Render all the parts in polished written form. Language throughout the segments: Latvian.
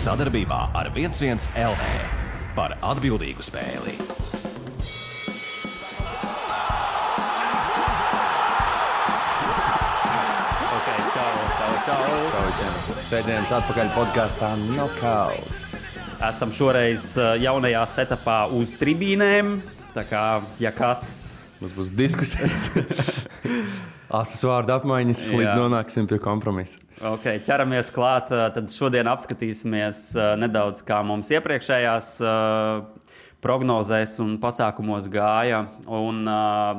Sadarbībā ar 11 LV par atbildīgu spēli. Čau visiem. Sveiciens atpakaļ podkastā Knockouts. Esam šoreiz jaunajā setupā uz tribīnēm. Tā kā, ja kas... Mums būs diskusijas. Asas vārdu apmaiņas, līdz nonāksim pie kompromisa. Ok, ķeramies klāt. Tad šodien apskatīsimies nedaudz, kā mums iepriekšējās prognozēs un pasākumos gāja. Un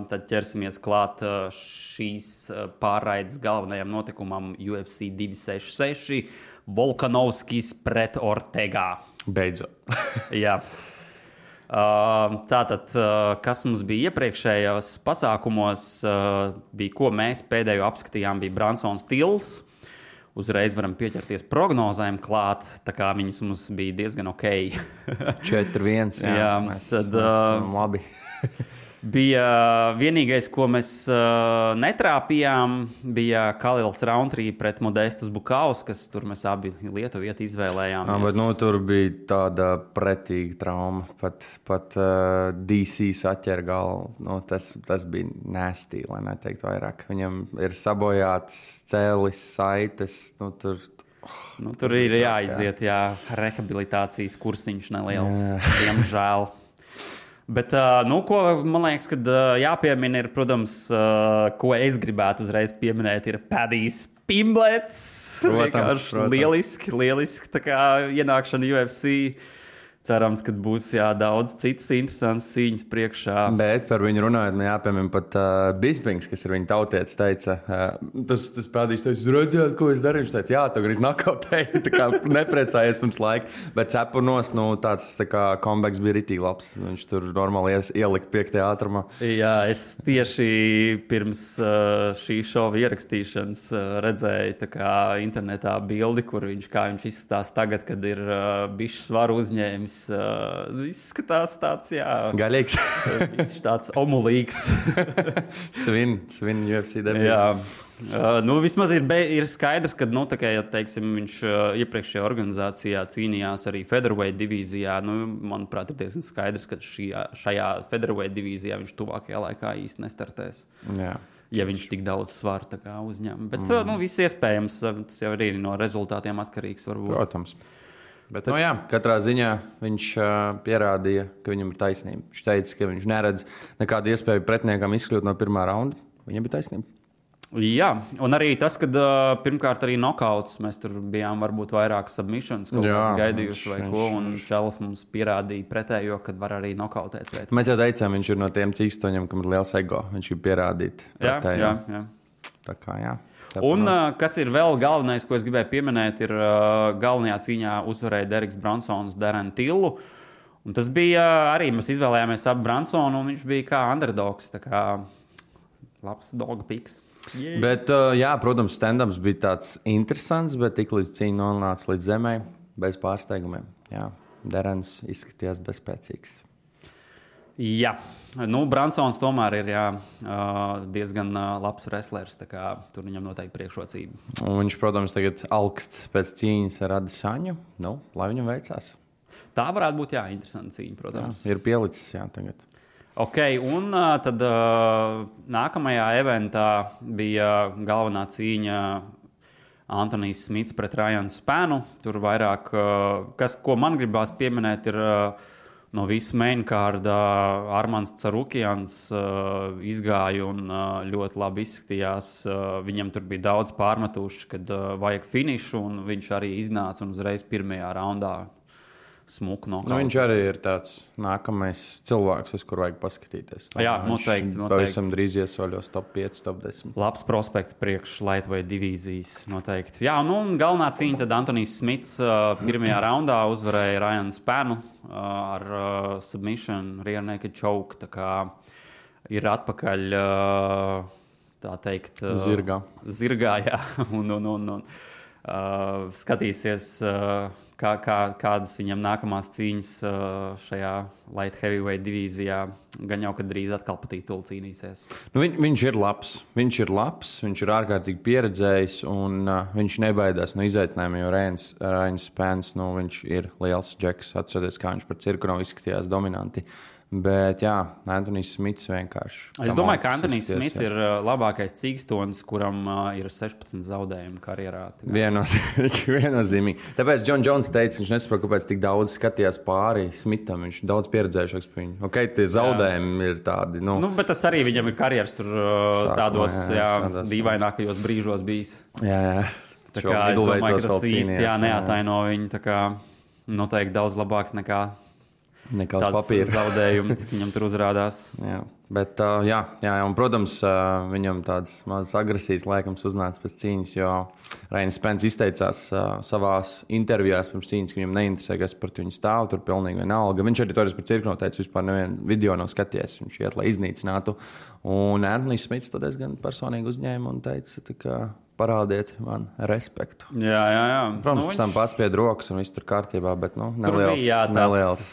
tad ķersimies klāt šīs pārraides galvenajam notikumam UFC 266. Volkanovskis pret Ortegā. Beidzot. Jā. Tātad, kas mums bija iepriekšējos pasākumos, bija, ko mēs pēdējo apskatījām, bija Bransons Tills. Uzreiz varam pieķerties prognozēm klāt, tā kā viņas mums bija diezgan ok. 4-1, jā. Mēs labi. Bija vienīgais, ko mēs netrāpījām, bija Kalils Rountree pret Modestus Bukauskas. Tur mēs abi Lietuvieti izvēlējāmies. Bet tur bija tāda pretīga trauma. Pat DC saķer galvu. Tas bija nasty, lai neteiktu vairāk. Viņam ir sabojāts cēlis, saites. Tur ir jāiziet, rehabilitācijas kursiņš neliels, diemžēl. Bet, ko man liekas, kad jāpiemina ir, protams, ko es gribētu uzreiz pieminēt, ir Padijs Pimblets. Protams. Lieliski tā kā ienākšana UFC. Cerams, ka būs daudz citas interesantas cīņas priekšā. Bet par viņu runājot, jāpiemina pat Bispings, kas ir viņa tautietis, teica, tas Padijs teica, redzējāt, ko es darīju? Viņš teica, jā, tu gribi nokauteju, tā kā neprecājies pirms laika. Bet cepurnos, tāds tā kā comebacks bija ritīgi labs. Viņš tur normāli ielika 5. ātrumā. Jā, es tieši pirms šī šova ierakstīšanas redzēju tā kā internetā bildi, kur kā viņš izskatās tagad, kad ir bišķi svaru uzņēmis. Izskatās tāds, gaļīgs. Tāds omulīgs. Svin UFC debiju. Jā. Vismaz ir skaidrs, ka, ja teiksim, viņš iepriekšējā organizācijā cīnījās arī featherweight divīzijā. Manuprāt, ir diezgan skaidrs, ka šajā featherweight divīzijā viņš tuvākajā laikā īsti nestartēs. Jā. Ja viņš tik daudz svaru uzņem. Bet viss iespējams, tas jau arī no rezultātiem atkarīgs varbūt. Protams. Bet, katrā ziņā viņš pierādīja, ka viņam ir taisnība. Viņš teica, ka viņš neredz nekādu iespēju pretiniekam izkļūt no pirmā raunda. Viņam bija taisnība. Jā, un arī tas, ka pirmkārt arī knockouts, mēs tur bijām varbūt vairāk submissions, kaut kāds gaidījuši vai ko, un Čelis mums pierādīja pretējo, kad var arī knockoutēt. Mēs jau teicām, viņš ir no tiem cīkstoņiem, kam ir liels ego. Viņš ir pierādīt pretējo. Jā. Tā kā, jā. Un kas ir vēl galvenais, ko es gribēju pieminēt, ir galvenajā cīņā uzvarēja Deriks Bransons Darren Tillu. Un tas bija arī, mēs izvēlējāmies ap Bransonu, un viņš bija kā underdogs, tā kā labs dog piks. Yeah. Bet, protams, stand-ups bija tāds interesants, bet tik līdz cīņa nonāca līdz zemē, bez pārsteigumiem. Jā, Darrens izskatījās bezspēcīgs. Jā, Bransons tomēr ir diezgan labs wrestlers, tā kā tur viņam noteikti priekšrocība. Un viņš, protams, tagad augst pēc cīņas ar Adesanju, lai viņam veicās. Tā varētu būt, interesanta cīņa, protams. Jā, ir pielicis, tagad. Ok, un tad nākamajā eventā bija galvenā cīņa Antonijs Smits pret Ryan Spanu. Tur vairāk, ko man gribās pieminēt, ir... No visa mainkārda Armāns Carukjans izgāja un ļoti labi izskatījās. Viņam tur bija daudz pārmetuši, kad vajag finišu, un viņš arī iznāca un uzreiz pirmajā raundā smuku nokauts. Viņš arī ir tāds nākamais cilvēks, uz kuru vajag paskatīties. Jā, noteikti. Pavisam drīz iesoļos top 5, top 10. Labs prospekts priekš lightweight divīzijas noteikti. Jā, un galvenā cīņa tad Antonijs Smits pirmajā raundā uzvarēja Ryan Spanu ar submission, rear naked choke. Tā kā ir atpakaļ, tā teikt, zirgā, jā, un skatīsies, kādas viņam nākamās cīņas šajā light heavyweight divīzijā. Gan jau, kad drīz atkal pa titulu cīnīsies. Nu, viņš ir labs. Viņš ir ārkārtīgi pieredzējis, un viņš nebaidās no izaicinājumiem, jo Rainis Spence, viņš ir liels džeks. Atcerieties, kā viņš par Cirkunov izskatījās dominanti. Bet, jā, Antonijs Smits vienkārši. Es domāju, ka Antonijs Smits ir labākais cīkstonis, kuram ir 16 zaudējumi karjerā. Viennozīmīgi. Tāpēc John Jones teica, viņš nesaprot, kāpēc tik daudz skatījās pāri Smitam. Viņš ir daudz pieredzējušāks par viņu. Ok, tie zaudējumi ir tādi. Bet tas arī viņam ir karjeras tur tādos dīvainākajos brīžos bijis. Jā. Tā kā es domāju, ka tas īsti neataino viņu. Tā kā noteikti daudz labāks nekā tās papīra zaudējumi, cik viņam tur uzrādās. Jā. Bet, un, protams, viņam tādas mazas agresijas laikams uznāca pēc cīņas, jo Rainis Spence izteicās savās intervijās pirms cīņas, ka viņam neinteresē, kas par viņu stāv, tur pilnīgi vienalga. Viņš arī toreiz par Cirkunov teica, vispār nevienu video nav skaties, viņš iet, lai iznīcinātu. Un Antonijs Smits to diezgan personīgi uzņēma un teica, ka parādiet man respektu. Jā. Protams, pēc tam paspied rokas un viss tur kārtībā, bet neliels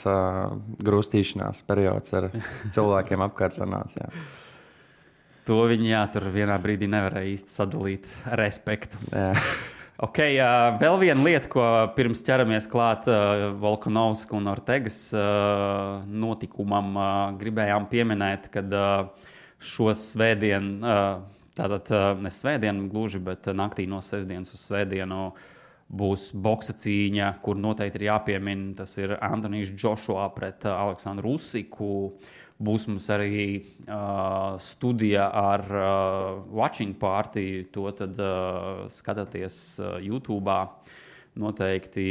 grūstīšanās periods ar cilvēkiem apkārt sanāca. To viņi, tur vienā brīdī nevarēja īsti sadalīt respektu. Jā. Okay, vēl viena lieta, ko pirms ķeramies klāt Volkanovska un Ortegas notikumam, gribējām pieminēt, kad šo svētdienu, tātad ne svētdienu gluži, bet naktī no sestdienas uz svētdienu būs boksa cīņa, kur noteikti ir jāpiemina. Tas ir Antonijs Joshua pret Aleksandru Usiku. Būs mums arī studija ar Watching Party. To tad skatāties YouTube. Noteikti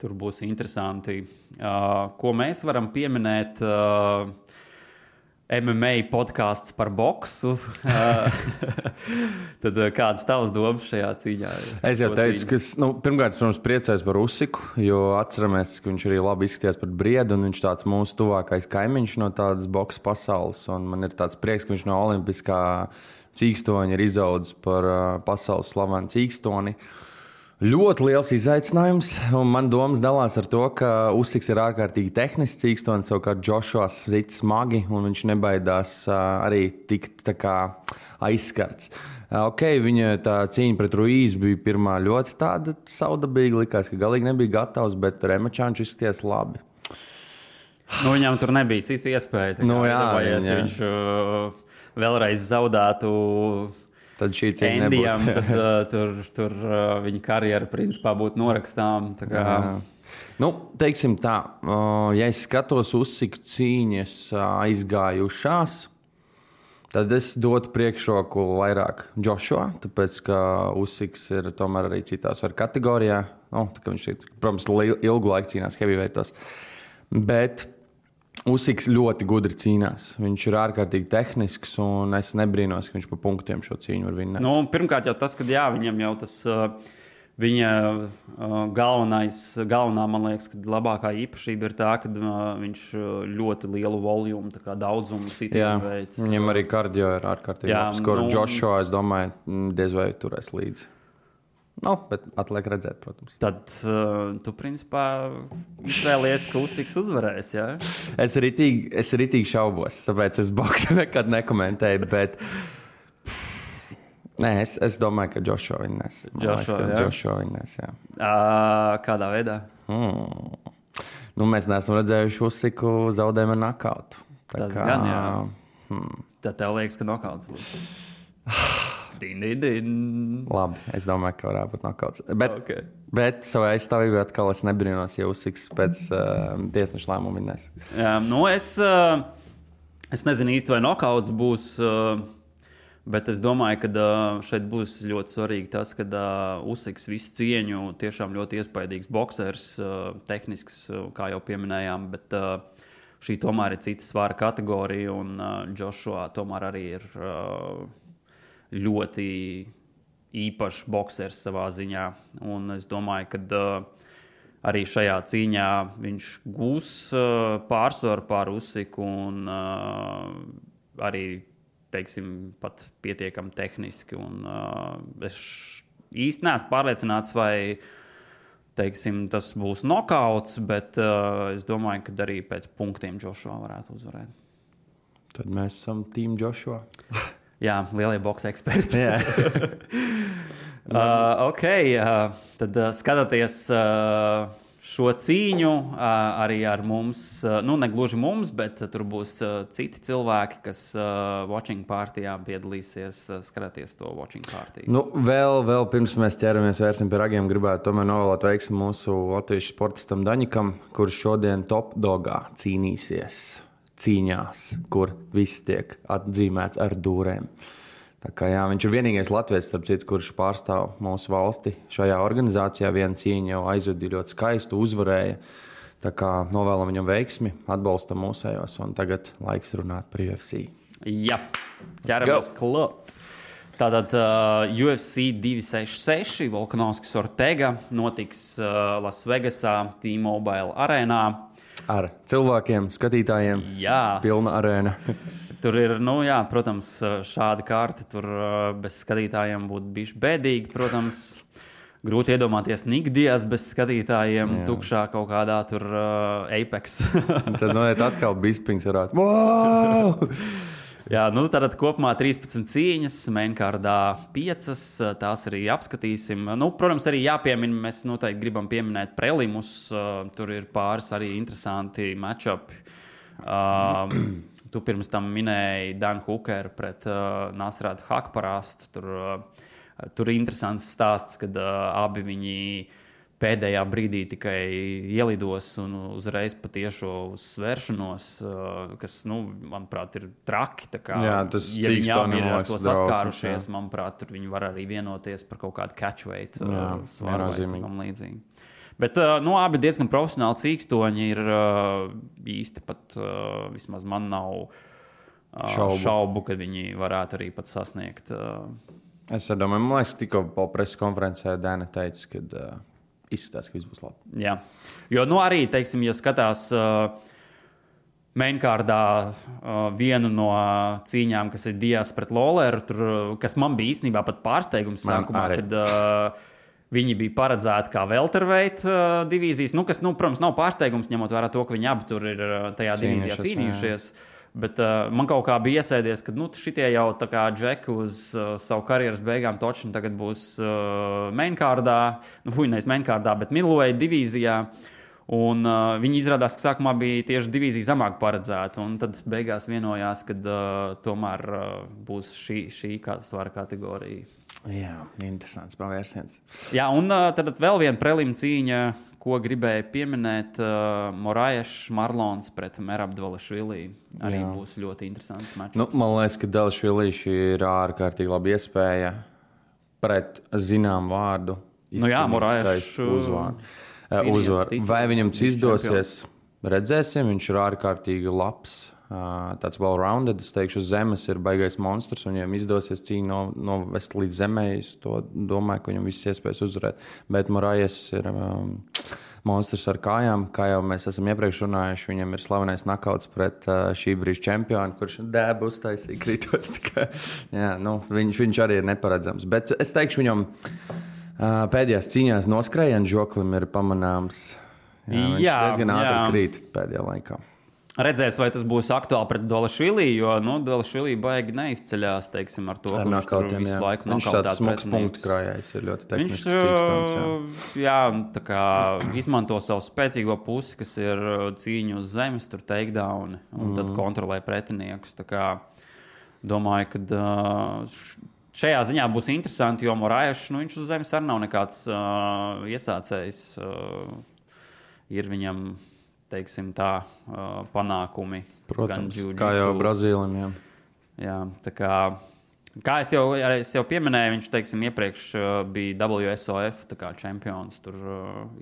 tur būs interesanti. Ko mēs varam pieminēt? MMA podkāsts par boksu. Tad kādas tavas domas šajā cīņā? Es jau teicu, ka pirmkārt, protams, priecājos par Usiku, jo atceramies, ka viņš arī labi izskatījās par briedu, un viņš tāds mūsu tuvākais kaimiņš no tādas boksa pasaules. Un man ir tāds prieks, ka viņš no olimpiskā cīkstoņa ir izaudzis par pasaules slavenu cīkstoni. Ļoti liels izaicinājums, un man domas dalās ar to, ka Usiks ir ārkārtīgi tehnisks cīkstonis, savukārt Joshua sit smagi, un viņš nebaidās arī tikt tā kā aizskarts. Ok, viņa tā cīņa pret Ruiz bija pirmā ļoti tāda saudabīga, likās, ka galīgi nebija gatavs, bet remačā viņš izskatījās labi. Viņam tur nebija cita iespēja. Viņš vēlreiz zaudētu tad šī cīņa nebūtu. Tur viņa karjera principā būtu norakstām. Teiksim tā, ja es skatos Usiku cīņas aizgājušās, tad es dotu priekšroku vairāk Joshua, tāpēc, ka Usiks ir tomēr arī citās kategorijā. Viņš ir, protams, ilgu laiku cīnās heavyweightos. Bet Usiks ļoti gudri cīnās. Viņš ir ārkārtīgi tehnisks, un es nebrīnos, ka viņš pa punktiem šo cīņu var vinnēt. Pirmkārt jau tas, ka viņam jau tas viņa galvenā, man liekas, ka labākā īpašība ir tā, ka viņš ļoti lielu volumu, tā kā daudzumu sitienu veids. Viņam arī kardio ir ārkārtīgi labs. Joshua, es domāju, diez vai turēs līdzi. Bet atliek redzēt, protams. Tad tu, principā, izvēlies, ka Usiks uzvarēs, jā? Es ritīgi šaubos, tāpēc es boksu nekad nekomentēju, bet es domāju, ka Joshua vinnēs. Joshua vinnēs, jā. Kādā veidā? Mēs neesam redzējuši Usiku zaudējumu ar nakautu. Tas gan, jā. Tad tev liekas, ka nokauts būs. Labi, es domāju, ka varētu būt nokauts. Bet savā aizstāvībā atkal es nebrīnos, ja Usiks pēc tiesneša lēmuma vinnēs. Es nezinu īsti, vai nokauts būs, bet es domāju, ka šeit būs ļoti svarīgi tas, ka Usiks visu cieņu tiešām ļoti iespaidīgs boksers, tehnisks, kā jau pieminējām, bet šī tomēr ir cita svara kategorija, un Joshua tomēr arī ir ļoti īpašs boksers savā ziņā. Un es domāju, ka arī šajā cīņā viņš gūs pārsvaru pār Usiku un arī, teiksim, pat pietiekami tehniski. Un es īsti neesmu pārliecināts, vai teiksim, tas būs nokauts, bet es domāju, ka arī pēc punktiem Joshua varētu uzvarēt. Tad mēs esam Team Joshua. Jā, lielie boks eksperti. Jā. Tad skatoties šo cīņu arī ar mums, ne gluži mums, bet tur būs citi cilvēki, kas watching partijā piedalīsies, skaties to watching partiju. Vēl pirms mēs ķeramies vērsim pie ragiem, gribētu tomēr novēlēt veiksmi mūsu latviešu sportistam Daņikam, kurš šodien top dogā cīnīsies cīņās, kur viss tiek atzīmēts ar dūrēm. Tā kā, jā, viņš ir vienīgais latviečs, starp citu, kurš pārstāv mūsu valsti šajā organizācijā. Viena cīņa jau aizvadīja ļoti skaistu, uzvarēja. Tā kā novēlam viņam veiksmi, atbalstam mūsējos, un tagad laiks runāt par UFC. Jā, ķeramies klāt. Tātad UFC 266, Volkanovskis Ortega notiks Lasvegasā, T-Mobile arēnā. Ar cilvēkiem, skatītājiem, pilna arēna. Tur ir, protams, šāda kārta. Tur bez skatītājiem būtu bijis bēdīgi. Protams, grūti iedomāties Nikdijas bez skatītājiem, tukšā kaut kādā tur Apex. Tad atkal Bispings varētu. Wow! Jā, tātad kopumā 13 cīņas, mainkārdā 5, tās arī apskatīsim. Protams, arī jāpiemina, mēs noteikti gribam pieminēt prelimus, tur ir pāris arī interesanti matchupi. Tu pirms tam minēji Dan Hooker pret Nasratu Hakparastu. Tur ir interesants stāsts, kad abi viņi pēdējā brīdī tikai ielidos un uzreiz patiešo uzsvēršanos, kas, manuprāt, ir traki. Jā, tas ja viņi abi ir ar to saskārušies, manuprāt, tur viņi var arī vienoties par kaut kādu catchweight svaru vai tam līdzīgi. Bet abi diezgan profesionāli cīkstoņi ir īsti pat, vismaz man nav šaubu, ka viņi varētu arī pat sasniegt. Es domāju, man liekas, tikko preses konferencē Dēna teica, ka izskatās, ka viss būs labi. Jā, jo arī, teiksim, ja skatās mainkārdā vienu no cīņām, kas ir Dias pret Lawleru, kas man bija īstenībā pat pārsteigums sākumā, kad viņi bija paredzēti kā welterweight divīzijas, kas, protams, nav pārsteigums, ņemot vērā to, ka viņi abi tur ir tajā divīzijā cīnījušies. Bet man kaut kā bija iesēdies, ka šitie jau tā kā džeki uz savu karjeras beigām točni tagad būs mainkārdā, nevis mainkārdā, bet middleweight divīzijā. Un viņi izrādās, ka sākumā bija tieši divīzija zamāk paredzēta, un tad beigās vienojās, ka tomēr būs šī svara kategorija. Jā, interesants pavērsiens. Jā, un tad vēl viena prelim cīņa, ko gribēju pieminēt, Moraes Marlons pret Merab Dvalishvili. Arī būs ļoti interesants matčs. Man liekas, ka Dvalishvili ir ārkārtīgi laba iespēja pret zinām vārdu izcīnīt uzvaru. Vai viņam izdosies, redzēsim, viņš ir ārkārtīgi labs. Tāds well-rounded, es teikšu, uz zemes ir baigais monstrs, un viņam izdosies cīņu novest līdz zemē. Es to domāju, ka viņam viss iespējas uzvarēt. Bet Moraes ir monstrs ar kājām, kā jau mēs esam iepriekš runājuši. Viņam ir slavenais nakauts pret šī brīža čempionu, kurš dēbu uztaisīja kritos. Viņš arī ir neparedzams. Bet es teikšu, viņam pēdējās cīņās noskrējienu žoklim ir pamanāms. Viņš diezgan ātri krīt pēdējā laikā. Redzēs, vai tas būs aktuāli pret Dvalishvili, jo Dvalishvili baigi neizceļās, teiksim, ar to, ka viņš tur visu laiku viņš tāds smags punktu krājējs, ir ļoti tehnisks cīkstons. Tā kā izmanto savu spēcīgo pusi, kas ir cīņu uz zemes, tur takedown, un tad kontrolē pretiniekus. Tā kā domāju, ka šajā ziņā būs interesanti, jo Moraes, viņš uz zemes arī nav nekāds iesācējs. Ir viņam, teiksim tā, panākumi. Protams, kā jau Brazīlim. Jā, tā kā es jau pieminēju, viņš, teiksim, iepriekš bija WSOF čempions. Tur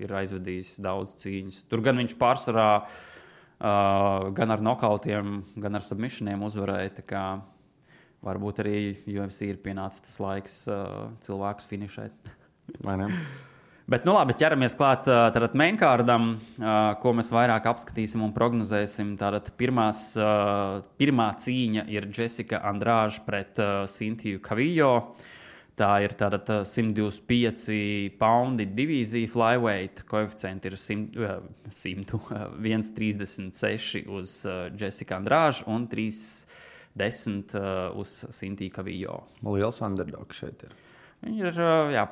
ir aizvedījis daudz cīņas. Tur gan viņš pārsvarā gan ar nokautiem, gan ar submissioniem uzvarēja. Tā kā varbūt arī UFC ir pienācis tas laiks cilvēkus finišēt. Vai ne? Bet, labi, ķeramies klāt tātad mainkārdam, ko mēs vairāk apskatīsim un prognozēsim. Tātad pirmā cīņa ir Jessica Andrade pret Cintiju Kavillo. Tā ir tāda 125 poundi divīzija flyweight. Koeficienti ir 136 uz Jessica Andrade un 310 uz Cynthia Calvillo. Liels underdogs šeit ir. Viņi ir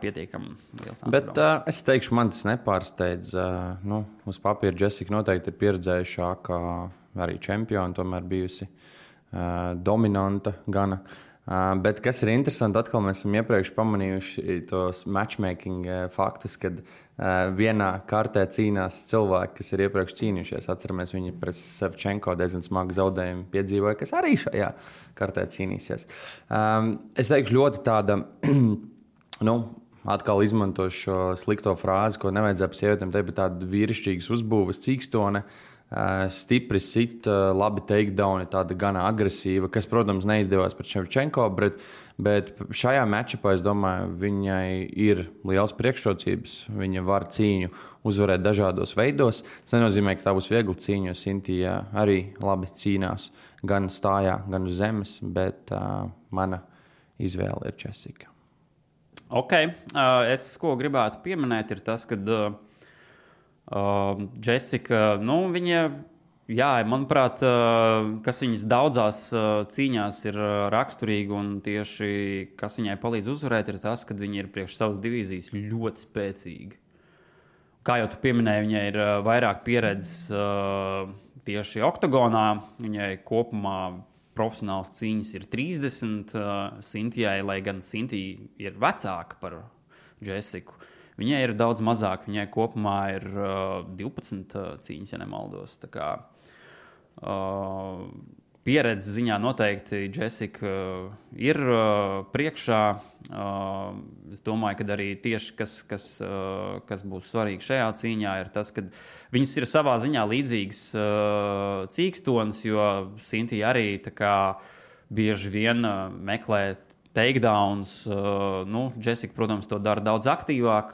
pietiekami liels Bet underdogs. es teikšu, man tas nepārsteidz. Uz papīra Jessica noteikti ir pieredzējušāka, arī čempiona, tomēr bijusi dominanta gana. Bet kas ir interesanti, atkal mēs esam iepriekš pamanījuši tos matchmaking faktus, kad vienā kartē cīnās cilvēki, kas ir iepriekš cīnījušies. Atceramies, viņi pret Savčenko diezgan smagu zaudējumu piedzīvoja, kas arī šajā kartē cīnīsies. Es teikšu ļoti tāda, atkal izmantošu šo slikto frāzi, ko nevajadzēja par sievietēm teikt, bet tāda vīrišķīgas uzbūves cīkstone. Stipri sit, labi takedown, tāda gana agresīva, kas, protams, neizdevās pret Ševčenko, bet šajā matchupā, es domāju, viņai ir liels priekšrocības. Viņa var cīņu uzvarēt dažādos veidos. Tas nenozīmē, ka tā būs viegla cīņa, jo Cynthia arī labi cīnās gan stājā, gan uz zemes, bet mana izvēle ir Jessica. Ok, es ko gribētu pieminēt ir tas, ka Jessica, viņa, manuprāt, kas viņas daudzās cīņās ir raksturīga un tieši kas viņai palīdz uzvarēt, ir tas, ka viņa ir priekš savas divīzijas ļoti spēcīga. Kā jau tu pieminēji, viņai ir vairāk pieredzes tieši oktagonā, viņai kopumā profesionāls cīņas ir 30, Cynthijai, lai gan Cynthija ir vecāka par Jessiku. Viņai ir daudz mazāk, viņai kopumā ir 12 cīņas, ja nemaldos. Tā kā pieredzes ziņā noteikti Jessica ir priekšā. Es domāju, ka arī tieši kas būs svarīgi šajā cīņā, ir tas, ka viņas ir savā ziņā līdzīgas cīkstonis, jo Cynthia arī tā kā bieži vien meklē takedowns. Jessica, protams, to dara daudz aktīvāk,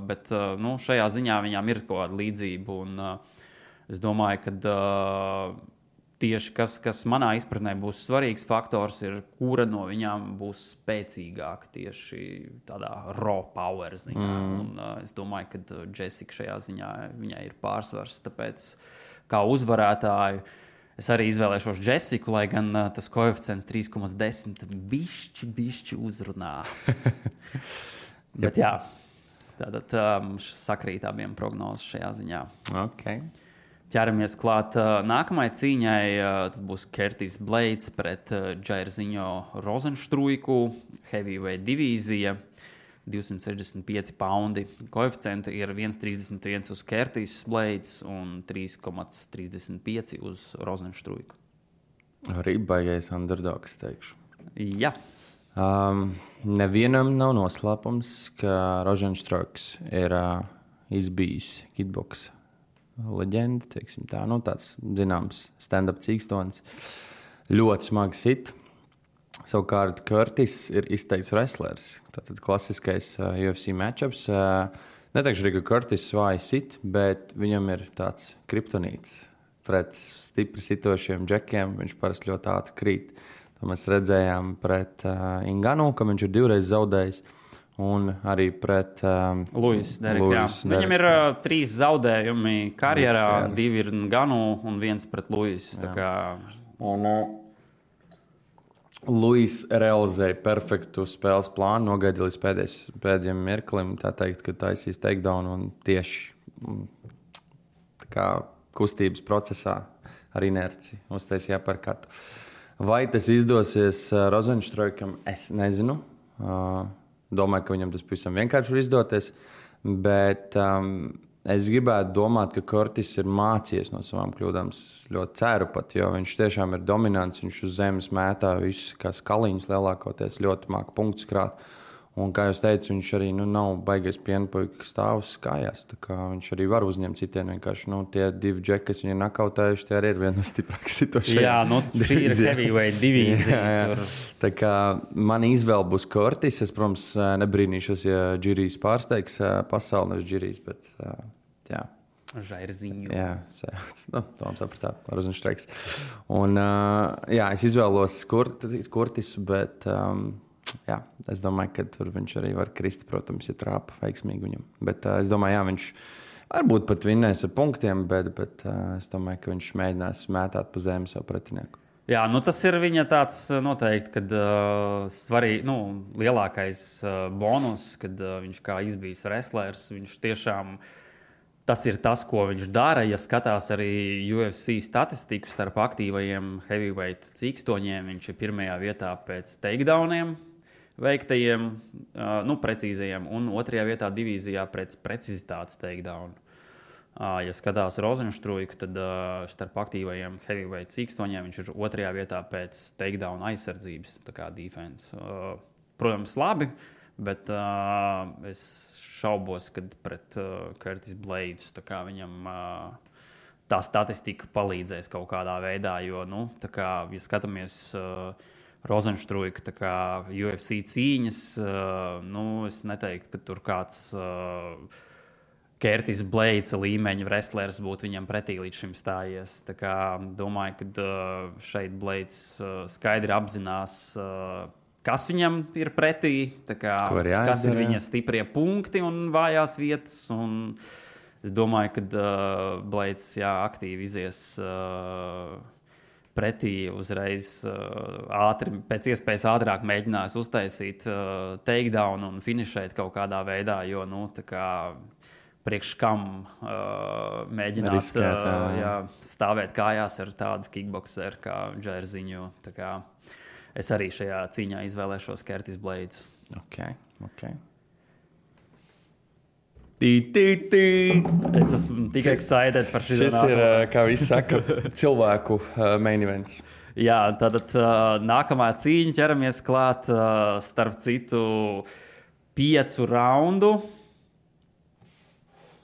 bet šajā ziņā viņām ir kaut kāda līdzība. Un, es domāju, ka tieši kas manā izpratnē būs svarīgs faktors, ir, kura no viņām būs spēcīgāka tieši tādā raw power ziņā. Un, es domāju, ka Jessica šajā ziņā viņai ir pārsvars. Tāpēc kā uzvarētāju es arī izvēlēšos Jessiku, lai gan tas koeficients 3,10 bišķi uzrunā. Bet jā, tātad mums sakrīt abiem prognozes šajā ziņā. Okay. Ķeramies klāt nākamai cīņai. Tas būs Curtis Blades pret Jairzinho Rozenstruiku, heavyweight divīzija. 265 poundi. Koeficienti ir 1,31 uz Curtis Blades un 3,35 uz Rozenstruiku. Arī baigais underdogs, teikšu. Jā. Nevienam nav noslēpums, ka Rozenstruiks ir izbijis kickboks leģenda, teiksim tā. Tāds zināms stand-up cīkstonis. Ļoti smagi sit. Savukārt Curtis ir izteikts wrestlers. Tātad klasiskais UFC matchups. Neteikšu arī, ka Curtis svāji sit, bet viņam ir tāds kriptonīts. Pret stipri sitošiem džekiem viņš parasti ļoti ātri krīt. To mēs redzējām pret Inganu, ka viņš ir 2 reizes zaudējis. Un arī pret Luis Derek. Viņam ir 3 zaudējumi karjerā, 2 ir Nganu un 1 pret Luis. Luis realizēja perfektu spēles plānu, nogaidīja līdz pēdējiem mirklim, tā teikt, ka taisīs takedown un tieši kustības procesā ar inerci uztaisīja parkatu. Vai tas izdosies Rozenstruikam, es nezinu. Domāju, ka viņam tas pavisam vienkārši var izdoties, bet es gribētu domāt, ka Curtis ir mācījies no savām kļūdām. Ļoti ceru pat, jo viņš tiešām ir dominants. Viņš uz zemes mētā visus kā skaliņus lielākoties, ļoti māca punktus krāt. Un, kā jūs teicat, viņš arī nav baigais pienpuika stāvs kājās. Tā kā viņš arī var uzņemt citienu. Vienkārši tie 2 džeki, kas viņu nakautējuši, tie arī ir viena no stiprākās situācijām. Jā, šī ir heavyweight divīzija. Jā. Tā kā man izvēle būs Curtis. Es, protams, nebrīnīšos, ja Džirijs pārsteigs pasauli, nevis Džirijs, bet jā. Jairzinho. Jā, Toms sapratāt, Rozenstruiks. Un, jā, es izvēlos Curtisu, bet jā, es domāju, ka tur viņš arī var krist, protams, ja trāpa veiksmīgi viņam. Bet es domāju, jā, viņš varbūt pat vinnēs ar punktiem, bet es domāju, ka viņš mēģinās mētāt pa zemi savu pretinieku. Jā, nu tas ir viņa tāds noteikti, kad svarīgi, lielākais bonus, kad viņš kā izbijis wrestlers, viņš tiešām, tas ir tas, ko viņš dara. Ja skatās arī UFC statistiku starp aktīvajiem heavyweight cīkstoņiem, viņš ir pirmajā vietā pēc takedowniem veiktajiem, precīzajiem, un otrajā vietā divīzijā pēc precizitātes takedownu. Ja skatās Rozenštruiku, tad starp aktīvajiem heavyweight cīkstoņiem viņš ir otrajā vietā pēc takedown aizsardzības, tā kā defense. Protams, labi, bet es šaubos, kad pret Curtis Blades viņam tā statistika palīdzēs kaut kādā veidā, jo, ja skatāmies Rozenštruika UFC cīņas, es neteiktu, ka tur kāds Curtis Blades līmeņa wrestlers būtu viņam pretī līdz šim stājies. Domāju, ka šeit Blades skaidri apzinās, kas viņam ir pretī, kas ir viņa stiprie punkti un vājās vietas. Un es domāju, ka Blades aktīvi izies pretī uzreiz ātri, pēc iespējas ātrāk mēģinās uztaisīt takedown un finišēt kaut kādā veidā, jo, priekš kam mēģināt riskēt, stāvēt kājās ar tādu kickboxeru kā Džerziņu. Es arī šajā cīņā izvēlēšos Curtis Blades. Okay. Es esmu tik excited par šī Šis ir, kā visi saka, cilvēku main events. Jā, tad nākamā cīņa ķeramies klāt starp citu 5 raundu.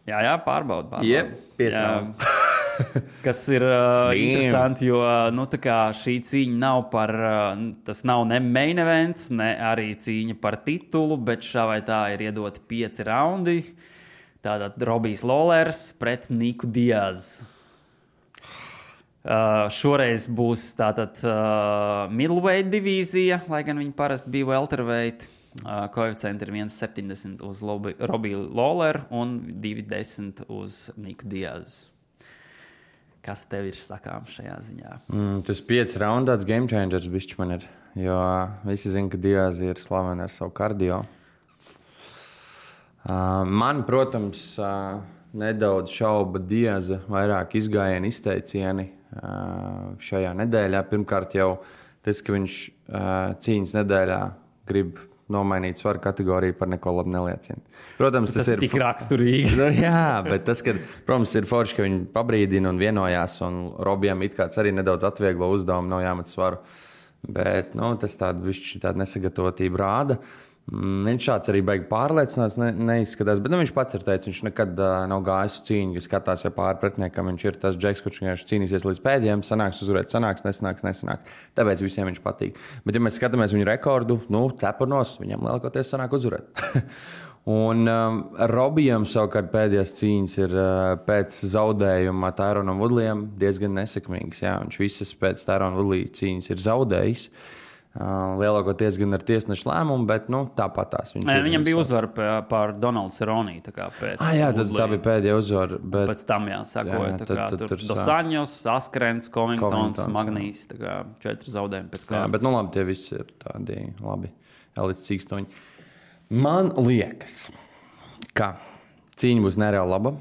Jā, pārbaudu. Jep, 5 raundu. Kas ir interesanti, jo šī cīņa nav par, tas nav ne main events, ne arī cīņa par titulu, bet šā vai tā ir iedoti 5 raundi. Tātad Robijs Lawlers pret Niku Diazu. Šoreiz būs tātad middleweight divīzija, lai gan viņi parasti bija welterweight. Koeficienti ir 1,70 uz Robiju Lawleru un 2,10 uz Niku Diazu. Kas tev ir sakāms šajā ziņā? Tas 5 raundu tāds game changers bišķi man ir, jo visi zina, ka Diaz ir slavena ar savu kardio. Man, protams, nedaudz šauba Diaza vairāk izgājieni, izteicieni šajā nedēļā. Pirmkārt jau tas, ka viņš cīņas nedēļā grib nomainīt svaru kategoriju, par neko labi neliecina. Protams, tas ir tik raksturīgi. Jā, bet tas, ka, protams, ir forši, ka viņi pabrīdina un vienojās, un Robijam it kāds arī nedaudz atvieglo uzdevumu, nav jāmet svaru. Bet tas tāda nesagatavotība rāda. Viņš šāds arī baigi pārliecināts, neizskatās, bet viņš pats ir teicis, viņš nekad nav gājis uz cīņu, kas skatās jau pāri pretiniekam. Viņš ir tas džeks, kurš vienkārši cīnīsies līdz pēdējiem, sanāks uzvarēt, sanāks, nesanāks. Tāpēc visiem viņš patīk. Bet, ja mēs skatāmies viņu rekordu, cepurnos, viņam lielākoties sanāk uzvarēt. Un Robijam savukārt pēdējās cīņas ir pēc zaudējuma Tyronam Woodleyam diezgan nesekmīgas. Jā, viņš visas pēc Tyrona Woodley cīņas ir zaudējis. Lielākoties gan ar tiesnešu lēmumu, bet tāpatās viņš ir. Viņam bija uzvara pār Donaldu Cerrone. Jā, tā bija pēdējā uzvara. Bet... Pēc tam sakoja. Tur Dosaņos, Askrens, Covingtons, Magnīs. 4 zaudējumi pēc kārtas. Bet labi, tie visi ir tādi labi elites cīkstoņi. Man liekas, ka cīņa būs nereāli laba.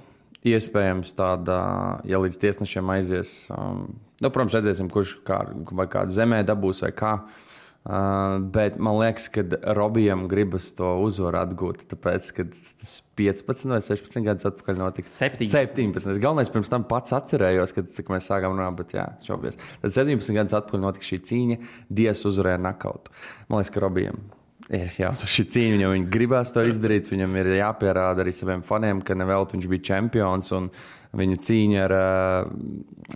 Iespējams tāda, ja līdz tiesnešiem aizies. Protams, redzēsim, kurš vai kādu zemē dabūs vai kā. Bet man liekas, ka Robijam gribas to uzvaru atgūt, tāpēc, ka tas 15 vai 16 gadus atpakaļ notika. 17. Galvenais pirms tam pats atcerējos, kad mēs sākām runāt, bet šobies. Tad 17 gadus atpakaļ notika šī cīņa, Diaz uzvarēja nakautu. Man liekas, ka Robijam ir jāuzvar šī cīņa, jo viņi gribās to izdarīt, viņam ir jāpierāda arī saviem faniem, ka nevēlt viņš bija čempions un viņa cīņa ar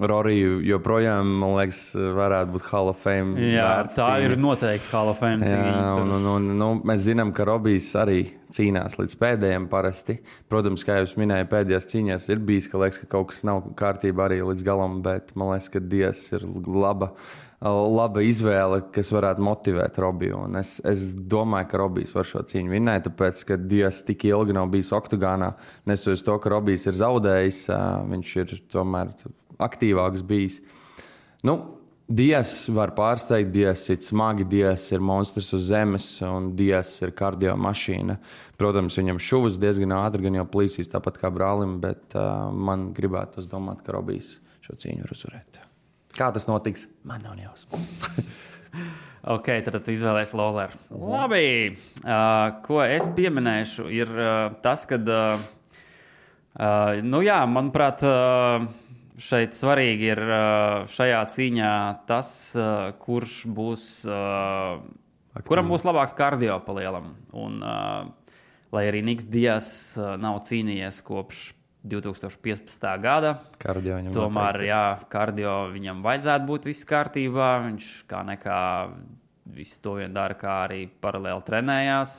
Roriju joprojām, man liekas, varētu būt Hall of Fame. Jā, tā cīņa. Ir noteikti Hall of Fame cīņa. Mēs zinām, ka Robijs arī cīnās līdz pēdējiem parasti. Protams, kā jūs minēju, pēdējās cīņās ir bijis, ka liekas, ka kaut kas nav kārtībā arī līdz galam, bet man liekas, ka Diaz ir laba laba izvēle, kas varētu motivēt Robiju. Un es domāju, ka Robijs var šo cīņu vinnēt, tāpēc, ka Dias tik ilgi nav bijis oktagānā. Nesoties to, ka Robijs ir zaudējis, viņš ir tomēr aktīvāks bijis. Nu, Dias var pārsteigt, Dias ir smagi, Dias ir monstrs uz zemes un Dias ir kardio mašīna. Protams, viņam šuvas diezgan ātri, gan jau plīsīs tāpat kā brālim, bet man gribētu domāt, ka Robijs šo cīņu var uzvarēt. Kā tas notiks? Man nav jausmas. Ok, tad tu izvēlēsi Lawleru. Labi, ko es pieminēšu, ir tas, ka, manuprāt, šeit svarīgi ir šajā cīņā tas, kurš būs, kuram būs labāks kardio pa lielam. Un, lai arī Niks Dias nav cīnījies kopš 2015. gada, tomēr, kardio viņam vajadzētu būt viss kārtībā. Viņš kā nekā visu to vien dara, kā arī paralēli trenējās,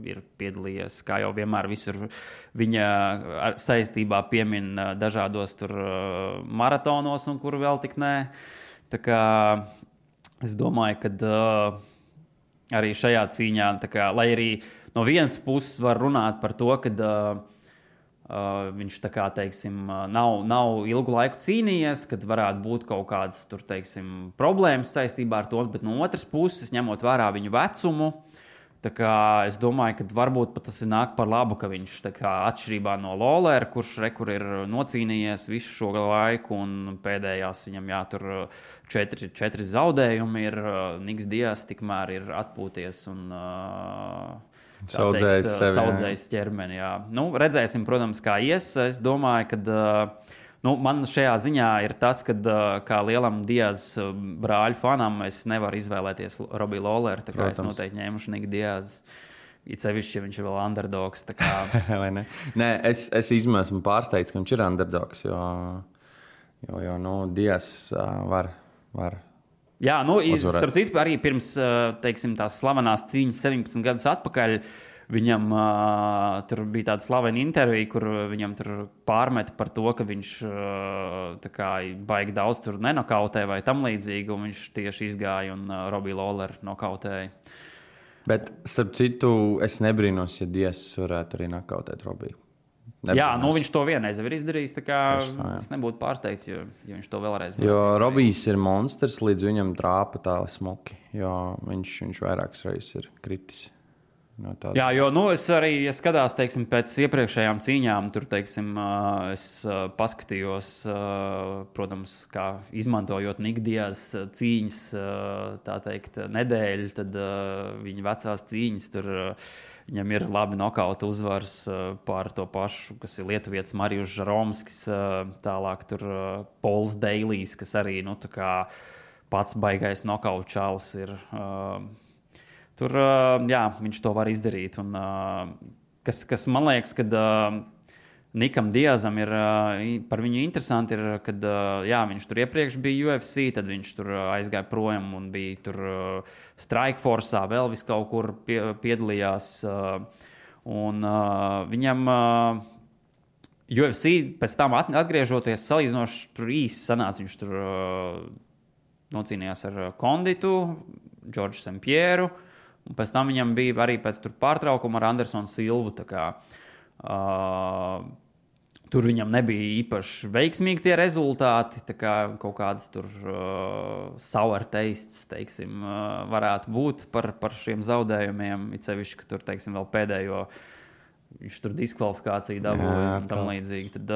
ir piedalījies, kā jau vienmēr visur viņa saistībā piemin dažādos tur maratonos un kur vēl tik nē. Tā kā es domāju, ka arī šajā cīņā, tā kā, lai arī no vienas puses var runāt par to, ka viņš tā kā, teiksim, nav ilgu laiku cīnījies, kad varētu būt kaut kādas tur, teiksim, problēmas saistībā ar to, bet no otras puses, ņemot vērā viņu vecumu, tā kā es domāju, ka varbūt pat tas ir nāk par labu, ka viņš tā kā atšķirībā no Lawlera, kurš rekur ir nocīnījies visu šo laiku un pēdējās viņam tur 4 zaudējumi ir, Niks Dias tikmēr ir atpūties un saudzējis ķermeni. Jā. Nu, redzēsim, protams, kā ies. Es domāju, ka man šajā ziņā ir tas, ka kā lielam Dias brāļu fanam es nevaru izvēlēties Robiju Lawleru, tā kā es noteikti ņēmuši Niku Dias. It sevišķi, ja viņš ir vēl underdogs. Tā kā... Nē, es esmu pārsteigts, ka viņš ir underdogs, jo Dias var Jā, starp citu, arī pirms, teiksim, tās slavenās cīņas 17 gadus atpakaļ, viņam tur bija tāda slavena intervija, kur viņam tur pārmeta par to, ka viņš tā kā baigi daudz tur nenokautē vai tam līdzīgi, un viņš tieši izgāja un Robiju Lawleru nokautēja. Bet, starp citu, es nebrīnos, ja Dias varētu arī nokautēt Robiju. Jā, viņš to vienreiz ir izdarījis, tā kā es nebūtu pārsteigts, ja viņš to vēlreiz jo Robijs ir monstrs, līdz viņam trāpa tā smuki, jo viņš vairākas reizes ir kritis. No jā, jo es arī skatās, teiksim, pēc iepriekšējām cīņām, tur, teiksim, es paskatījos, protams, kā izmantojot Niku Dias cīņas, tā teikt, nedēļu, tad viņa vecās cīņas tur viņam ir labi nokauta uzvars pār to pašu, kas ir lietuvietis Marijus Žaromskis, tālāk tur Pols Deilijs, kas arī, tā kā pats baigais nokauta čalis ir. Tur, viņš to var izdarīt. Un, kas man liekas, kad Nikam Diazam ir par viņu interesanti, ir, kad viņš tur iepriekš bija UFC, tad viņš tur aizgāja projām un bija tur Strikeforce'ā, vēl vis kaut kur piedalījās. Un viņam UFC pēc tam atgriežoties salīdzinoši tur īsi sanāca, viņš tur nocīnījās ar Konditu, Džordžu Sempieru, un pēc tam viņam bija arī pēc tur pārtraukuma ar Andersonu Silvu, tā kā tur viņam nebija īpaši veiksmīgi tie rezultāti, tā kā kaut kādas tur sour tastes, teiksim, varētu būt par šiem zaudējumiem, it sevišķi, ka tur, teiksim, vēl pēdējo viņš tur diskvalifikāciju dabūja un tam līdzīgi. Tad,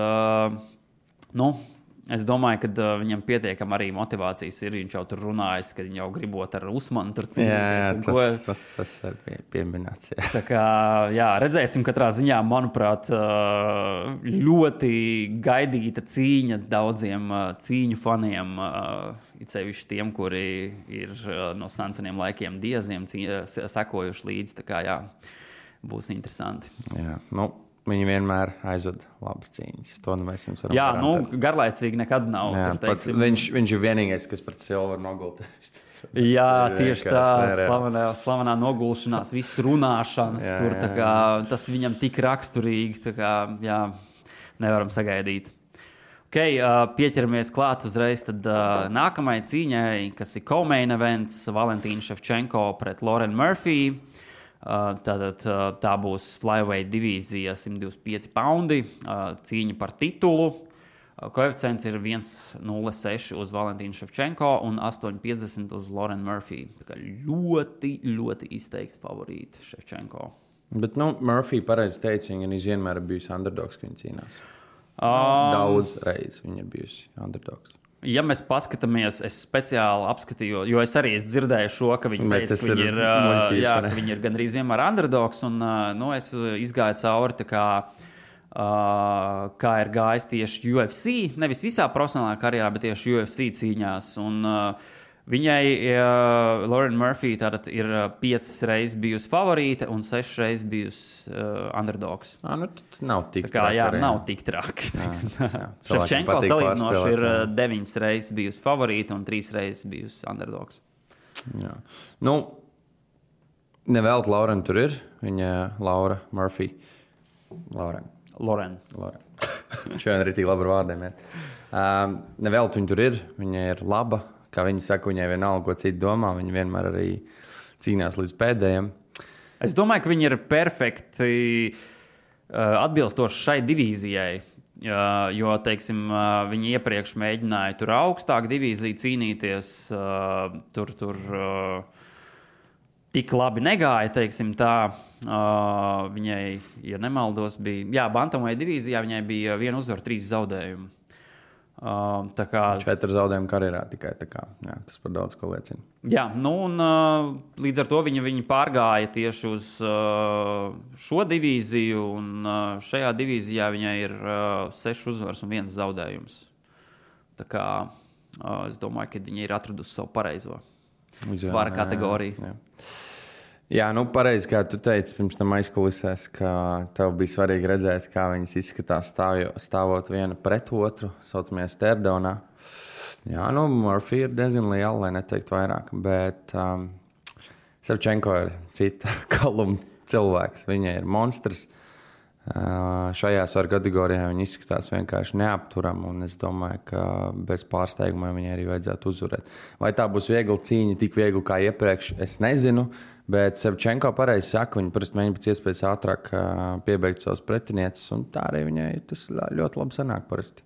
es domāju, ka viņam pietiekam arī motivācijas ir. Viņš jau tur runājis, ka viņš jau gribot ar Usmanu tur cīnīties. Tas ir pieminēts. Jā. Tā kā, redzēsim katrā ziņā, manuprāt, ļoti gaidīta cīņa daudziem cīņu faniem, it sevišķi tiem, kuri ir no seniem laikiem Diaziem sekojuši līdzi. Tā kā, būs interesanti. Jā, viņi vienmēr aizved labas cīņas. To mēs jums varam garantēt. Garlaicīgi nekad nav. Jā, tur, viņš ir vienīgais, kas pret Silveru nogulta. Jā, tieši tā. Slavenā nogulšanās, viss runāšanas. Tur, tā kā, tas viņam tik raksturīgi. Tā kā, nevaram sagaidīt. Pieķeramies klāt uzreiz tad, nākamai cīņai, kas ir co-main events Valentīna Ševčenko pret Lauren Murphy. Tā būs flyweight divīzija 125 poundi, cīņa par titulu. Koeficients ir 1,06 uz Valentīnu Ševčenko un 8,50 uz Lauren Murphy. Tā kā ļoti, ļoti izteikti favorīti Ševčenko. Bet, Murphy pareizi teica, viņa vienmēr ir bijusi underdogs, ka viņa cīnās. Daudz reizes viņa ir bijusi underdogs. Ja mēs paskatāmies, es speciāli apskatīju, jo es arī dzirdēju šo, ka viņi teica, ka viņi ir gandrīz vienmēr underdogs, un es izgāju cauri kā ir gājis tieši UFC, nevis visā profesionālā karjerā, bet tieši UFC cīņās. Un viņai Lauren Murphy tātad ir 5 reizes bijusi favorīte un 6 reizes bijusi underdogs. Nav tik traki. Nav tik traki. Ševčenko salīdzinoši ir 9 reizes bijusi favorīte un 3 reizes bijusi underdogs. Jā. Nevēlt Lauren tur ir. Viņa Laura Murphy. Lauren. Šodien arī tik labi ar vārdiem. Nevēlt viņa tur ir. Viņa ir laba. Kā viņi saka, viņai vienalga, ko citi domā. Viņa vienmēr arī cīnās līdz pēdējiem. Es domāju, ka viņi ir perfekti atbilstoši šai divīzijai. Jo, teiksim, viņi iepriekš mēģināja tur augstāk divīziju cīnīties. Tur tik labi negāja, teiksim tā. Viņai, ja nemaldos, bija... bantamweight divīzijā viņai bija 1 uzvara, 3 zaudējumi. 4 zaudējumi karjerā tikai tā kā. Jā, tas par daudz ko liecina. Jā, un līdz ar to viņi pārgāja tieši uz šo divīziju, un šajā divīzijā viņai ir 6 uzvaras un 1 zaudējums. Tā kā es domāju, ka viņi ir atradusi savu pareizo svara kategoriju. Jā, pareizi, kā tu teici pirms tam aizkulisēs, ka tev bija svarīgi redzēt, kā viņas izskatās stāvot viena pret otru, saucamajā stare-downā. Jā, Murphy ir diezgan liela, lai neteikt vairāk, bet Ševčenko ir cita kaluma cilvēks. Viņa ir monstrs. Šajā svaru kategorijā viņa izskatās vienkārši neapturama, un es domāju, ka bez pārsteiguma viņai arī vajadzētu uzvarēt. Vai tā būs viegla cīņa, tik viegla kā iepriekš, es nezinu. Bet Ševčenko pareizi saka, viņa parasti mēģina pēc iespējas ātrāk piebeigt savus pretinieces, un tā arī viņai tas ļoti labi sanāk parasti.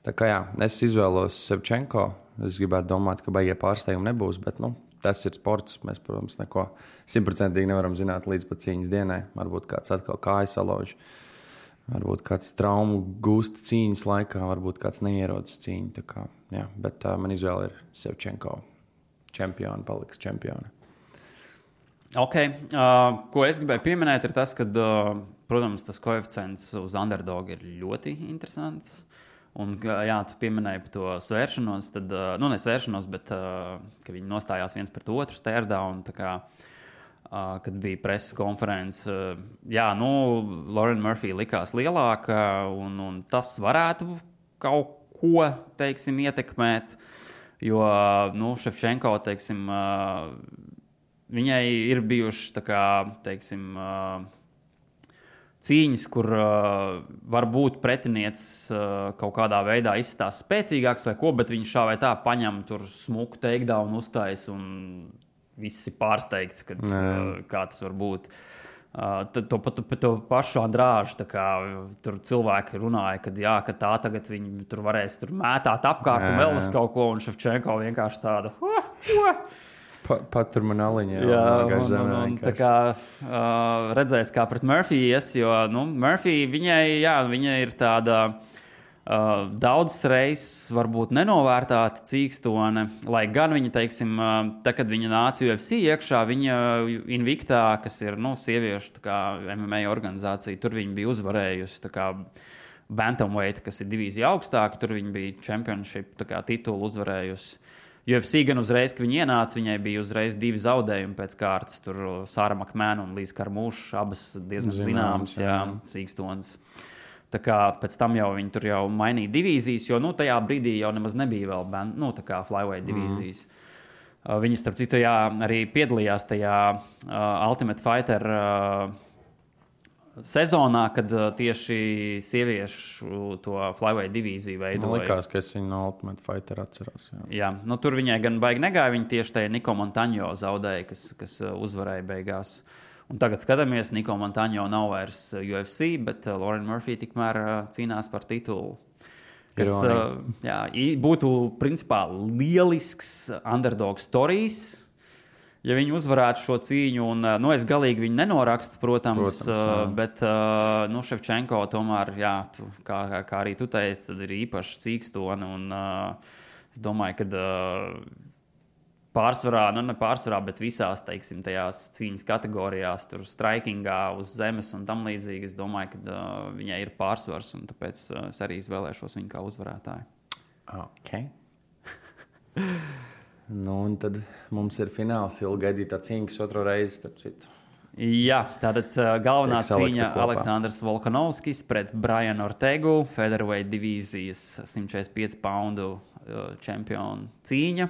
Tā kā es izvēlos Ševčenko. Es gribētu domāt, ka baigie pārsteigumi nebūs, bet tas ir sports. Mēs, protams, neko 100% nevaram zināt līdz pat cīņas dienai. Varbūt kāds atkal kājas salauž, varbūt kāds traumu gūst cīņas laikā, varbūt kāds neierodas cīņu. Tā kā, bet man izvēle ir Ševčenko. Čempioni paliks čempioni. Ko es gribēju pieminēt, ir tas, ka, protams, tas koeficients uz underdog ir ļoti interesants. Un, tu pieminēji par to svēršanos, tad, nesvēršanos, bet ka viņi nostājās viens pret otru stare-down, kad bija preses konferences. Lauren Murphy likās lielāka, un tas varētu kaut ko, teiksim, ietekmēt, jo, Ševčenko, teiksim, viņai ir bijušas, cīņas, kur varbūt pretiniecis kaut kādā veidā izstāsta spēcīgāks vai ko, bet viņš šā vai tā paņem tur smuku takedown uztais un viss ir pārsteigts, kā tas var būt. To pašu Andrāžu, tur cilvēki runāja, ka tā tagad viņi tur varēs tur mētāt apkārt un vēl uz kaut ko, un Ševčenko vienkārši tāda... Patur man aliņā. Tā kā redzēs, kā pret Murphy ies, jo Murphy, viņa ir tāda daudzas reizes varbūt nenovērtāta cīkstone, lai gan viņa, teiksim, kad viņa nāca UFC iekšā, viņa Invictā, kas ir, sieviešu MMA organizācija, tur viņa bija uzvarējusi, bantamweight, kas ir divīzija augstāk, tur viņa bija championship titulu uzvarējusi. UFC gan uzreiz, kad viņa ienāca, viņai bija uzreiz 2 zaudējumi pēc kārtas. Tur Sāra Makmēna un Līza Karmūša, abas diezgan zināmas cīkstonas. Tā kā pēc tam jau viņi tur jau mainīja divīzijas, jo tajā brīdī jau nemaz nebija vēl flyweight divīzijas. Viņi, starp citu, arī piedalījās tajā Ultimate Fighter sezonā, kad tieši sieviešu to flyweight divīziju veidoja. Man likās, ka es viņu no Ultimate Fighter atceros. Jā, tur viņai gan baigi negāja. Viņa tieši tajā Niko Montaņo zaudēja, kas uzvarēja beigās. Un tagad skatāmies, Niko Montaņo nav vairs UFC, bet Lauren Murphy tikmēr cīnās par titulu. Kas būtu principā lielisks underdog stories. Ja viņi uzvarētu šo cīņu, un es galīgi viņu nenorakstu, protams bet Ševčenko tomēr, kā arī tu teici, tad ir īpaši cīkstoni, un es domāju, ka pārsvarā, ne pārsvarā, bet visās, teiksim, tajās cīņas kategorijās, tur strikingā, uz zemes un tam līdzīgi, es domāju, ka viņai ir pārsvars, un tāpēc es arī izvēlēšos viņu kā uzvarētāju. Ok. Un tad mums ir fināls, ilgaidītā cīņa, kas otro reizi, starp citu. Jā, tātad galvenā cīņa Aleksandrs Volkanovskis pret Brianu Ortegu, featherweight divīzijas 145 poundu čempionu cīņa.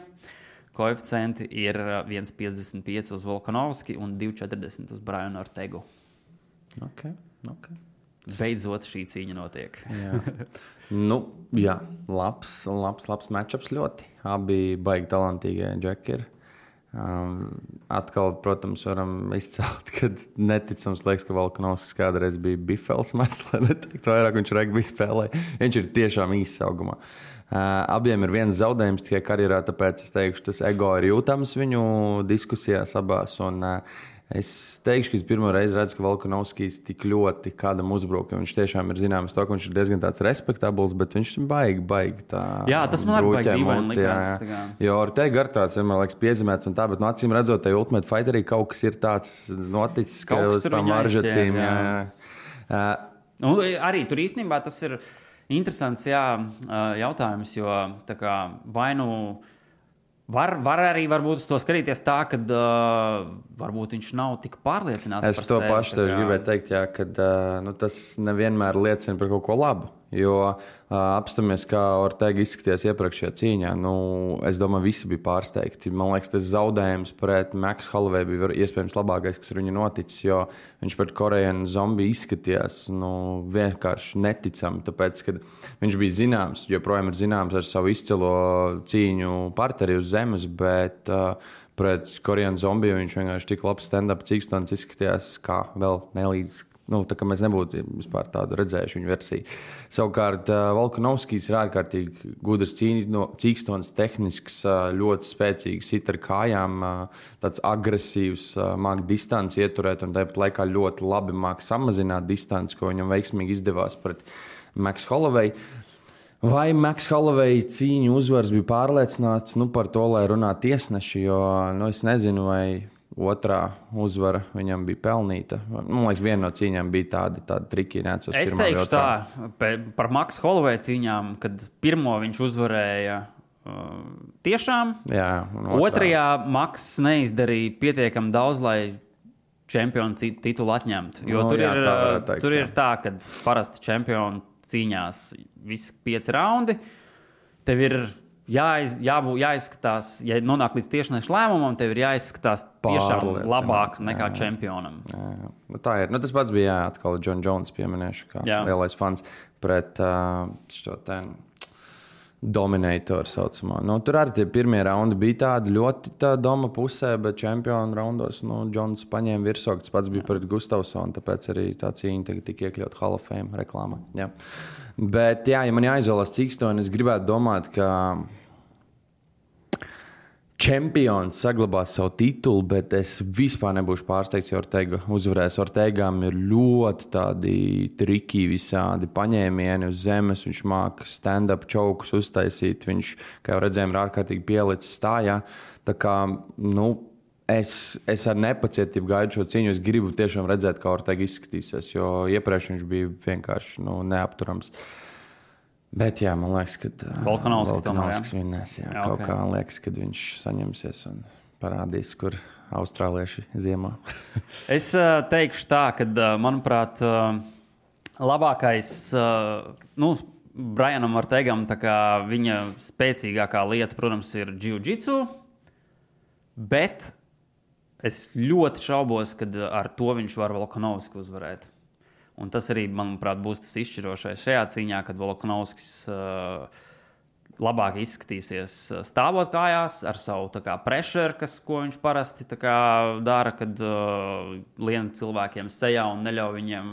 Koeficienti ir 1,55 uz Volkanovski un 2,40 uz Brianu Ortegu. Ok. Beidzot šī cīņa notiek. Jā. Labs matchups ļoti. Abi baigi talantīgie džeki ir. Atkal, protams, varam izcelt, kad neticams liekas, ka Volkanovskis kādreiz bija bifels mēs, lai neteiktu vairāk, viņš regbi spēlēja. Viņš ir tiešām īsts augumā. Abiem ir viens zaudējums tikai karjerā, tāpēc es teikšu, tas ego ir jūtams viņu diskusijās abās. Un es teikšu, ka es pirmo reizi redzu, ka Volkanovskis tik ļoti kādam uzbruk. Viņš tiešām ir zināms to, ka viņš ir diezgan tāds respektabls, bet viņš ir baigi tā. Jā, tas man arī baigi dīvaini likās. Jo Ortega ar tāds vienmēr liekas piezīmēts un tā, bet acīm redzot, tai Ultimate Fighterī kaut kas ir tāds noticis, ka uz tām varžacīm. Arī tur īstenībā tas ir interesants jautājums, jo tā kā vai nu var arī varbūt uz to skatīties tā, ka varbūt viņš nav tik pārliecināts par sevi. Es to pašu tev gribēju teikt, ka tas nevienmēr liecina par kaut ko labu. Jo apstāmies, kā Ortega izskatījās iepriekšējā cīņā. Es domāju, visi bija pārsteigti. Man liekas, tas zaudējums pret Max Holloway bija iespējams labākais, kas ar viņu noticis, jo viņš pret Korean Zombiju izskatījās vienkārši neticami. Tāpēc, kad viņš bija zināms, joprojām ir zināms ar savu izcilo cīņu partneri uz zemes, bet pret Korean Zombiju viņš vienkārši tik labs stand-up cīkstons izskatījās kā vēl nelīdz. Tā kā mēs nebūtu vispār tādu redzējuši viņu versiju. Savukārt Volkanovskis ir ārkārtīgi gudrs cīkstons, tehnisks, ļoti spēcīgs, sit ar kājām, tāds agresīvs, māk distanci ieturēt un tāpat laikā ļoti labi māk samazināt distanci, ko viņam veiksmīgi izdevās pret Max Holloway. Vai Max Holloway cīņu uzvars bija pārliecināts par to, lai runā tiesneši, jo es nezinu, vai otrā uzvara viņam bija pelnīta. Man liekas, viena no cīņām bija tāda triki. Es teikšu tā, par Max Holloway cīņām, kad pirmo viņš uzvarēja tiešām. Jā, otrajā Max neizdarīja pietiekami daudz, lai čempionu titulu atņemtu. Jo tur ir tā, ka parasti čempionu cīņās visi 5 raundi. Tev ir jāizskatās, ja nonāk līdz tiešniešu lēmumam, tev ir jāizskatās tiešām labāk nekā čempionam. Jā. Tā ir. Tas pats bija atkal John Jones pieminēšu, kā lielais fans pret šo Dominatoru saucamā. Tur arī tie pirmie raundi bija tādi ļoti doma pusē, bet čempionu raundos Jones paņēma virsroku. Tas pats bija pret Gustafsonu, tāpēc arī tā cīņa tagad tika iekļaut Hall of Fame reklāmā. Jā. Bet, ja man jāizvēlas cīkstoni, es gribētu domāt, ka čempions saglabās savu titulu, bet es vispār nebūšu pārsteigts, jo Ortega uzvarēs. Ortegām ir ļoti tādi triki visādi paņēmieni uz zemes. Viņš māca stand-up čaukus uztaisīt. Viņš, kā jau redzējām, ir ārkārtīgi pielicis stājā. Tā kā, es ar nepacietību gaidu šo cīņu. Es gribu tiešām redzēt, kā Ortega izskatīsies, jo iepriekš viņš bija vienkārši neapturams. Bet, jā, man liekas, ka Volkanovskis vinnēs. Kaut kā man liekas, ka viņš saņemsies un parādīs, kur austrālieši ziemā. Es teikšu tā, ka, manuprāt, labākais Brianam Ortegam, tā kā viņa spēcīgākā lieta, protams, ir jiu-jitsu, bet es ļoti šaubos, ka ar to viņš var Volkanovski uzvarēt. Un tas arī, manuprāt, būs tas izšķirošais šajā cīņā, kad Volkanovskis labāk izskatīsies stāvot kājās ar savu pressure, ko viņš parasti dara, kad lien cilvēkiem sejā un neļauj viņiem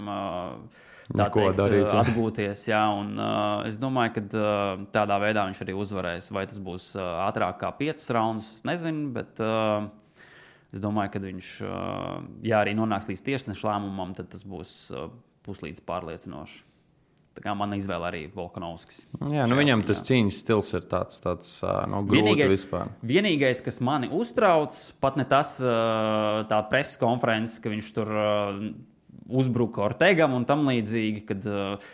atgūties. Jā, un, es domāju, ka tādā veidā viņš arī uzvarēs. Vai tas būs ātrāk kā 5 raundus, es nezinu, bet es domāju, ka viņš, ja arī nonāks līdz tiesneša lēmumam, tad tas būs puslīdz pārliecinoši. Tā kā mana izvēle arī Volkanovskis. Jā, viņam tas cīņas stils ir tāds grūti vispār. Vienīgais, kas mani uztrauc, pat ne tas tā preses konferences, ka viņš tur uzbruka Ortegam un tam līdzīgi, kad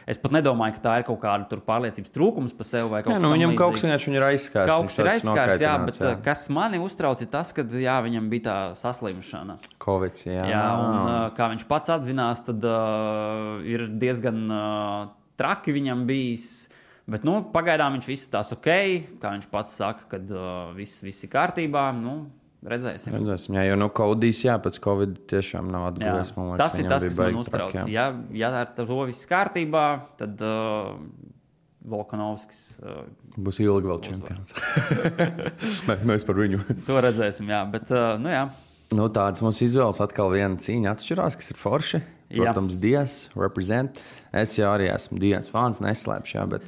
es pat nedomāju, ka tā ir kaut kāda pārliecības trūkums par sevi vai kaut kas viņam kaut kas vienkārši ir aizskārs. Kaut kas ir aizskārs, jā, bet kas mani uztrauc ir tas, ka viņam bija tā saslimšana. Covid, jā, un kā viņš pats atzinās, tad ir diezgan traki viņam bijis, bet pagaidām viņš viss tās ok, kā viņš pats saka, kad viss ir kārtībā, redzēsim. Jā, jo Kaudijs, pēc Covid tiešām nav atguvies. Tas ir tas, kas man uztrauc. Ja ar to viss kārtībā, tad Volkanovskis būs ilgi vēl čempions. Mēs par viņu. To redzēsim, jā, bet jā. Tāds mums izvēles atkal viena cīņa atšķirās, kas ir forši. Protams, Dias, represent. Es jau arī esmu Dias fans, neslēpšu, bet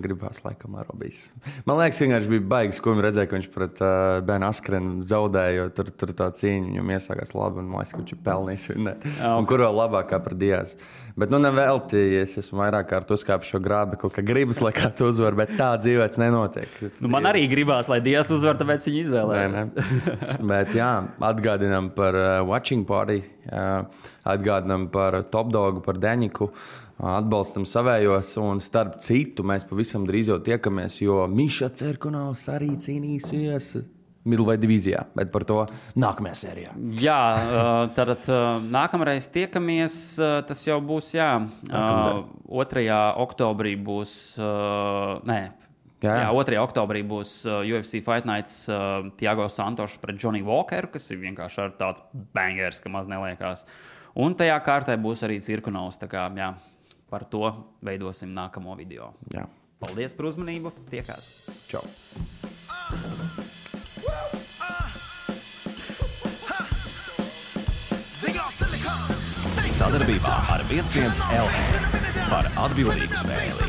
gribās laikam Arobijas. Man liekas, vienkārši bija baigas, ko viņi redzēja, ka viņš pret Ben Askrenu zaudēja, jo tur tā cīņa viņam iesākās labi, un man liekas, ka viņš ir pelnījis vinnēt. Un kur vēl labākā par Dias. Bet nevelti, es esmu vairāk kārt uzkāpis šo grābekli, ka gribas, lai kāds uzvar, bet tā dzīvēts nenotiek. Man arī gribās, lai Dias uzvar, tāpēc viņi izvēlējās. Bet jā, atgādinām par Watching Party, atgādinām par Top Dogu, par Deņiku, atbalstam savējos, un starp citu mēs pavisam drīz jau tiekamies, jo Miša Cerkunovs arī cīnīsies Middleweight divīzijā, bet par to nākamajā sērijā. Jā, tad nākamreiz tiekamies, tas jau būs, 2. oktobrī būs, 2. oktobrī būs UFC Fight Nights Thiago Santos pret Johnny Walkeru, kas ir vienkārši ar tāds bangers, ka maz neliekās. Un tajā kārtē būs arī Cirkunovs, tā kā, par to veidosim nākamo video. Jā. Paldies par uzmanību, tiekās. Čau. Sadarbībā ar 11 LV par atbildīgu spēli.